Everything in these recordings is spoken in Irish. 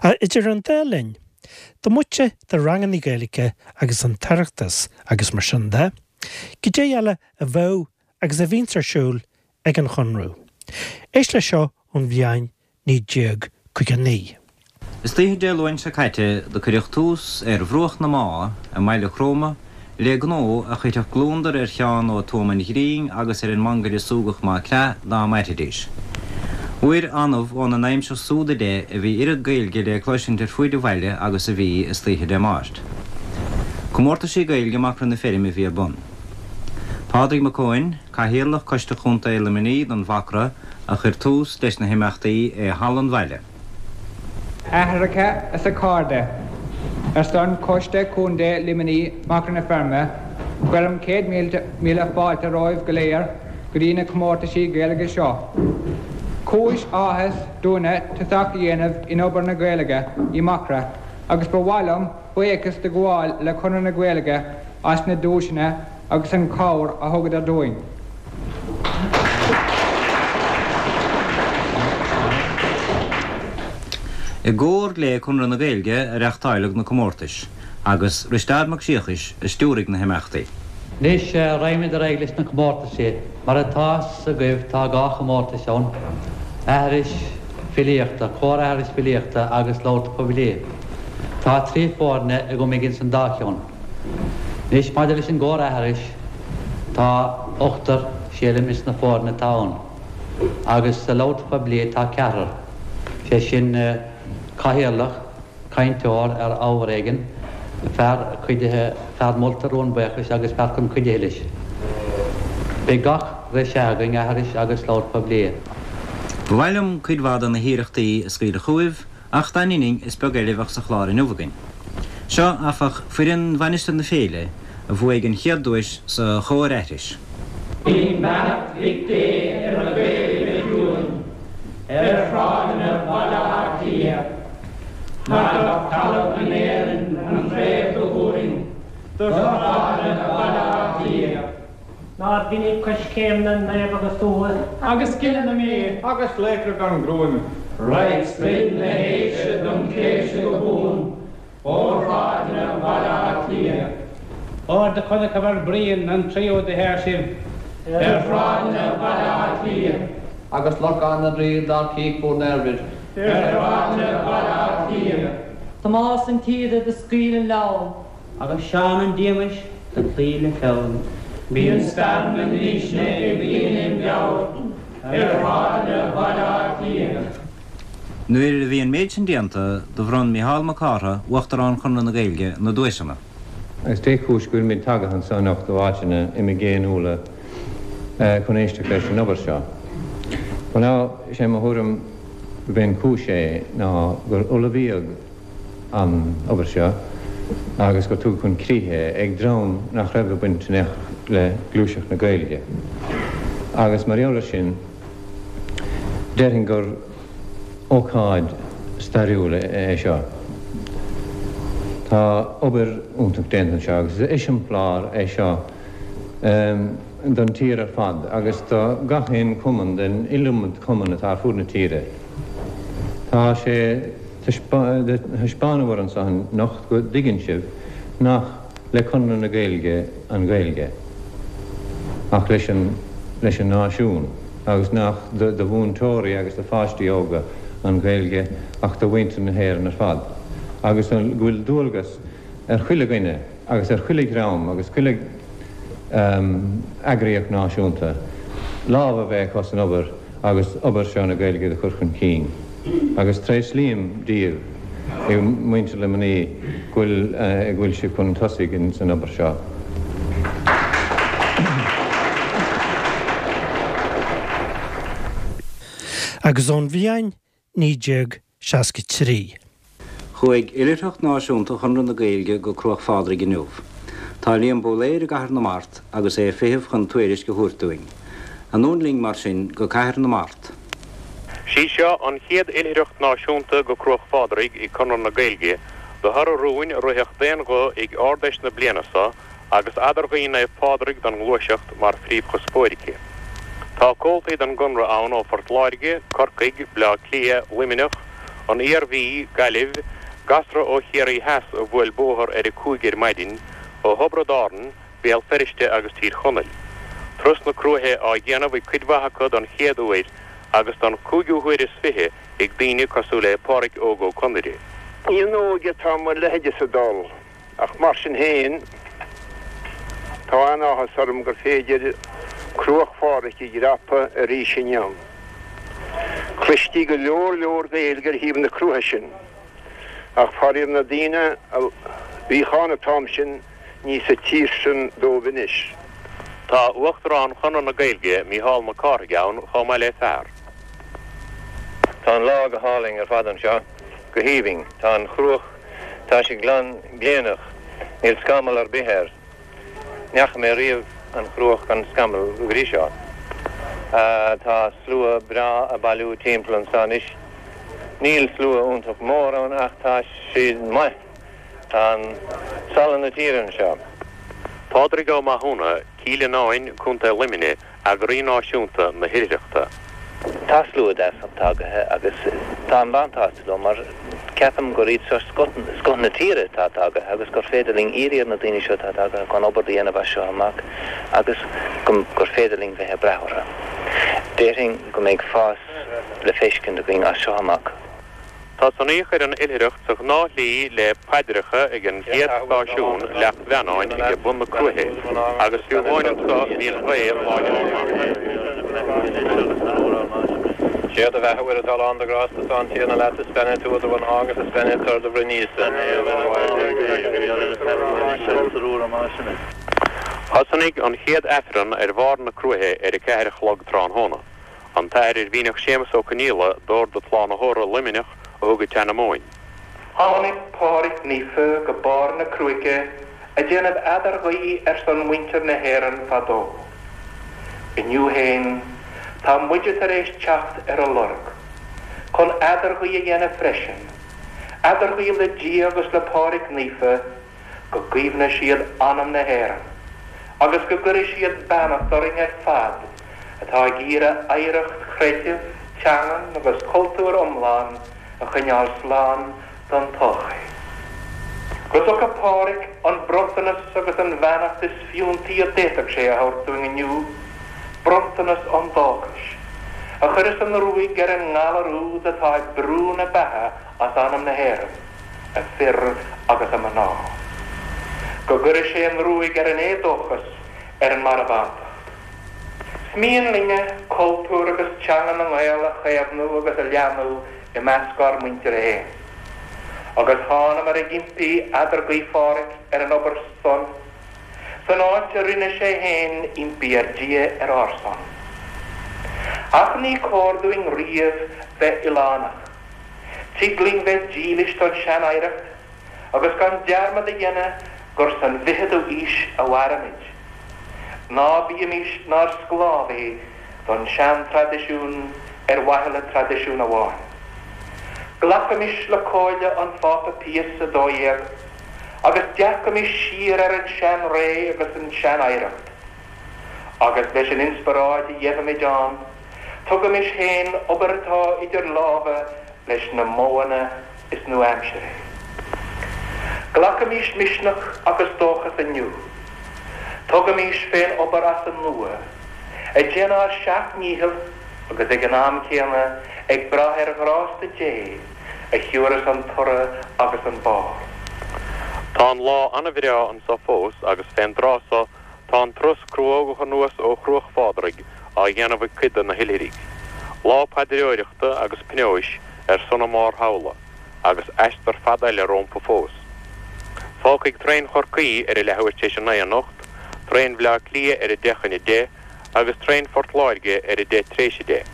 Ach idir an dá linn, diomaite de ranganna Gaeilge agus an tOireachtas agus mar sin de, goidé eile a bheadh agus a bhíonns ar siúl ag an Chonradh? Éist leis seo ón bhliain 1959. Istoíche Dé Luain seo caite do cuireadh tús ar bhruach na Má i mBaile Chromtha le gnó a chuirfeadh gliondar ar Sheán Ó Tuama an Ghrinn agus ar an mangaire Súgach Mac Craith dá mairfidís. Uair annamh óna n-aimsir súd i leith a bhí oiread Gaeilge le cloisint ar fuaid an bhaile agus a bhí istoíche Dé Máirt. Comórtaisí Gaeilge i Macra na Feirme a bhí ar bun. Pádraig Mac Eoin, Cathaoirleach Coiste Chontae Luimnigh don Mhacra a chuir tús leis na himeachtaí i Halla an Bhaile. Aithreacha is a chairde, Ar son Choiste Contae Luimnigh Macra na Feirme, cuirim 100,000 fáilte romhaibh go léir go dtí na comórtaisí Gaeilge seo. Cúis áthais dúinne tosach a dhéanamh in obair na Gaeilge i Macra agus ba mhaith liom buíochas do ghabháil le Conradh na Gaeilge as na duaiseanna agus an chabhair a thugadar dúinn. I gcomhar le Conradh na Gaeilge a reachtáileadh na comórtais, agus Risteárd Mac Siacais a stiúraigh na himeachtaí. Anois, raghaimid ar aghaidh leis na comórtaisí. Mar atá 'fhios agaibh tá 2 chomórtais ann, aithris filíochta, comhar-aithris filíochta agus labhairt poiblí. Tá 3 foirne agam ag ins an dá cheann. Anois, maidir leis an gcomhar-aithris, tá ochtar, sílim, ins na foirne atá ann, agus sa labhairt phoiblí tá ceathrar, sé sin, cathaoirleach, cainteoir ar ábhar éigin, fear cuidithe, fear molta rún buíochais agus fear chun cuidithe leis. Beidh gach re sea againn, aithris agus labhairt poiblí. Ba mhaith liom cuid mhaith de na hiarrachtaí a scaoileadh chugaibh, Ach dá ndeininn, is beag eile a bheadh sa chlár inniu againn. Seo, áfach, foireann Mhainistir na Féile a bhuaigh an chéad duais sa chomhar-aithris. Bíonn beannacht Mhic Dé ar na Gaeil go ciúin ar shráideanna Bhaile Átha Cliath. Magadh talamh in Éirinn an chraobh do thabharfainn do shráideanna Bhaile Átha Cliath. Nár mhinic coiscéim na naomh agus uath. Agus gile na Mí. Agus laochra gan gruaim. Raghaidh sprid na haoise dom chléibhse go buan ó shráideanna Bhaile Átha Cliath. Óir do chonacabhair Brian an tríú do shaor sibh. Ar shráideanna Bhaile Átha Cliath. Agus Lorcán na dTraoi dár cích bhur n-oirbhir. Ar shráideanna Bhaile Átha Cliath. Tomás an tSíoda do scaoil an leabhar. Agus Seán an Díomais do chloígh le fonn. Bíonn stair na ndísne ag daoine im mheabhair ar shráideanna Bhaile Átha Cliath. Nuair a bhí an méid sin déanta, do bhronn Mícheál Mac Cártha, Uachtarán Chonradh na Gaeilge, na duaiseanna. Agus dé chúis go bhfuilimid tagaithe anso anocht ó áiteanna imigéiniúla chun éisteacht leis an obair seo? Bhuel now, sé mo thuairim gurb é an chúis é ná gur ullmhaíodh an obair seo agus gur tugadh chun críche é ag dream nach raibh ag baint in aon chor le gluaiseacht na Gaeilge. Agus mar gheall air sin, déarfainn gur ócáid stairiúil é seo. Tá obair iontach déanta anseo agus is eiseamláir é seo don tír ar fad agus do gach aon chumann den iliomad cumann atá ar fud na tíre. Tá sé. Thaispeánabhair anso anocht go dtuigeann sibh nach le Conradh na Gaeilge an Ghaeilge ach leis an leis an náisiún agus nach do mhúinteoirí agus do pháistí óga an Ghaeilge ach do mhuintir na hÉireann ar fad agus go bhfuil dualgas ar chuile dhuine agus ar chuile dhream agus chuile eagraíocht náisiúnta lámh a bheith acu san obair agus obair seo na Gaeilge do chur chun cinn. Agus tréaslaím daoibh, a mhuintir Luimnigh, go bhfuil go bhfuil sibh chun tosaigh san obair seo. Agus ón bhliain 1963. Chuaigh Oilithreacht Náisiúnta Chonradh na Gaeilge go Cruach Phádraig inniu. Tá Liam Bóiléir i gCathair na Mart agus é ag feitheamh chun tuairisc a thabhairt dúinn. Anonn linn mar sin go Cathair na Mart. Sí seo an chéad Oilithreacht Náisiúnta go Cruach Phádraig ag Conradh na Gaeilge de thoradh rúin a ritheadh d'aon ghuth ag Ard-Fheis na bliana so agus Eadarghuí Naomh Pádraig don nGluaiseacht mar phríomhchuspóir aici. Tá comhaltaí den gConradh ann ó Phort Láirge, Corcaigh, Bleá Cliath, Luimneach, An Iarmhí, Gaillimh, gasra ó Chiarraí Theas a bhuail bóthar ar a 5 ar maidin, ó Thiobraid Árann, Béal Feirste agus Tír Chonaill. Turas na Cruaiche á dhéanamh ag cuid mhaith acu don chéad uair agus don chúigiú huair is 20 ag daoine cosúil le Pádhraic Óg Ó Conaire. Ní in óige atá mo leithéidese ag dul, ach mar sin féin, tá an-áthas orm gur féidir Cruach Phádraig a dhreapadh arís inniu. Chloistí go leor leor Gaeilge ar thaobh na cruaiche sin, ach faraor na daoine a bhíodh ann an t-am sin, ní sa tír sin dóibh anois. Tá Uachtarán Chonradh na Gaeilge, Mícheál Mac Cárthaigh ann chomh maith le fear. Tá an lá go hálainn ar fad anseo, go haoibhinn. Tá an chruach, tá sí glan gléineach, níl scamall ar bith air. Ní fhaca mé riamh an chruach gan scamall go dtí seo. Tá slua breá ag bailiú timpeall anseo anois. Níl slua iontach mór ann ach tá siad maith. Tá an salann na tíre anseo. Pádraig Ó Mathúna, Cill Fhionáin, Co. Luimnigh, eagraí náisiúnta na hoilithreachta. Tá slua deas tagaithe agus táim an-tsásta leo mar ceapaim gur iad seo scoth na tíre atá tagaithe agus gur féidir linn iarraidh ar na daoine seo atá tagaithe chun obair a dhéanamh as seo amach agus gur féidir linn bheith ag brath orthu. Déarfainn go mbeidh fás le feiscint againn as seo amach. Tosnaíodh ar an oilithreacht sa ghnáthshlí le paidreacha ag an gcéad stáisiún, Leacht Mheannáin, ag bun na Cruaiche, agus fiú amháin anso bhí an ghaoth láidir go maith. Sé do bheatha, a Mhuire atá lán de ghrásta, tá an Tiarna leat, is beannaithe tú idir mhná agus is beannaithe toradh do bhroinn Íosa. Thosnaigh an chéad Aifreann ar bharr na Cruaiche ar a 4 a chlog tráthnóna. An tAthair Oirmhinneach Séamus Ó Conghaile d'Ord an tSlánaitheora, Luimneach, a thug an tseanmóin. Tháinig Pádraig Naofa go barr na Cruaiche a déanamh eadarghuí ar son muintir na hÉireann fadó. Inniu fhéin tá muide tar éis teacht ar a lorg, chun eadarghuí a dhéanamh freisin, eadarghuí le Dia agus le Pádraig Naofa, go gcaomhna siad anam na hÉireann agus go gcuire siad beannacht orainn ar fad atá ag iarraidh oidhreacht chreidimh, teangan agus cultúir iomlán a choinneáil slán don todhchaí. Go dtuga Pádraig an bronntanas agus an bheannacht is fiúntaí a d'fhéadfadh sé a thabhairt dúinn inniu, bronntanas an dóchais, a chuireas an ruaig ar an ngalar úd atá ag brú na beatha as anam na hÉireann. a fir agus a mná. Go gcuire sé an ruaig ar an éadóchas, ar an marbhántacht. 'S mian linne cultúr agus teanga na nGael a chaomhnú agus a leathnú i measc ár muintire fhéin. Agus thánamar ag impí eadarghuí Phádhraic ar an obair san, san áit a rinne sé fhéin impí ar Dhia ar ár son. Ach ní cóir dúinn riamh bheith oileánach. Tig linn bheith dílis don sean-oidhreacht agus gan dearmad a dhéanamh gur san bhficheadú aois a mhairimid. Ná bímís 'nár sclábhaithe don sean-traidisiún ar mhaithe le traidisiún amháin. Glacaimis le comhairle an Phápa Pius 12 agus dearcaimis siar ar an sean-ré agus an sean-oidhreacht. Agus leis an inspioráid a gheibhimid ann, Tugaimis fén obair atá idir lámha leis na modhanna is nua-aimseartha. Glacaimis misneach agus dóchas inniu. Tugaimis fén obair as an nua, ag déanamh ár seacht ndícheall agus ag an am céanna ag brath ar ghrásta Dé a thiúrfas an toradh agus an barr. Tá an lá ana-bhreá anso fós agus fén dtráth so Tá an turas cruógach anuas ó Chruach Phádraig á dhéanamh ag cuid de na hoilithrigh. Lá paidreoireachta agus pionóis ar son a máthairthamhla, agus aistear fada eile rómpa fós. Fágfaidh traein Chorcaí ar a leathuair tar éis a 9 anocht, traein Bhleá Cliath ar a 10 chun 10 agus traein Phort Láirge ar a 10 tar éis 10.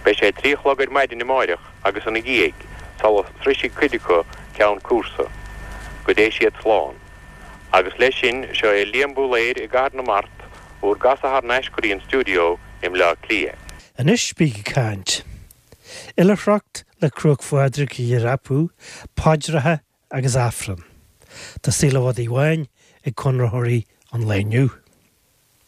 Beidh sé 3 a chlog ar maidin amáireach agus ina dhiaidh sula sroisfidh cuid acu ceann cúrsa. Go dté siad slán. Agus leis sin, seo é Liam Búlaeir i gCathair na Mart, bhur gcasadh thar n-ais go dtí an stiúideo i mBleá Cliath. Anois bíg ag caint. Oilithreacht le Cruach Phádraig a dhreapadh, paidreacha agus Aifreann. Tá saol i bhfad Uí Bháin ag Conraitheoirí an lae inniu.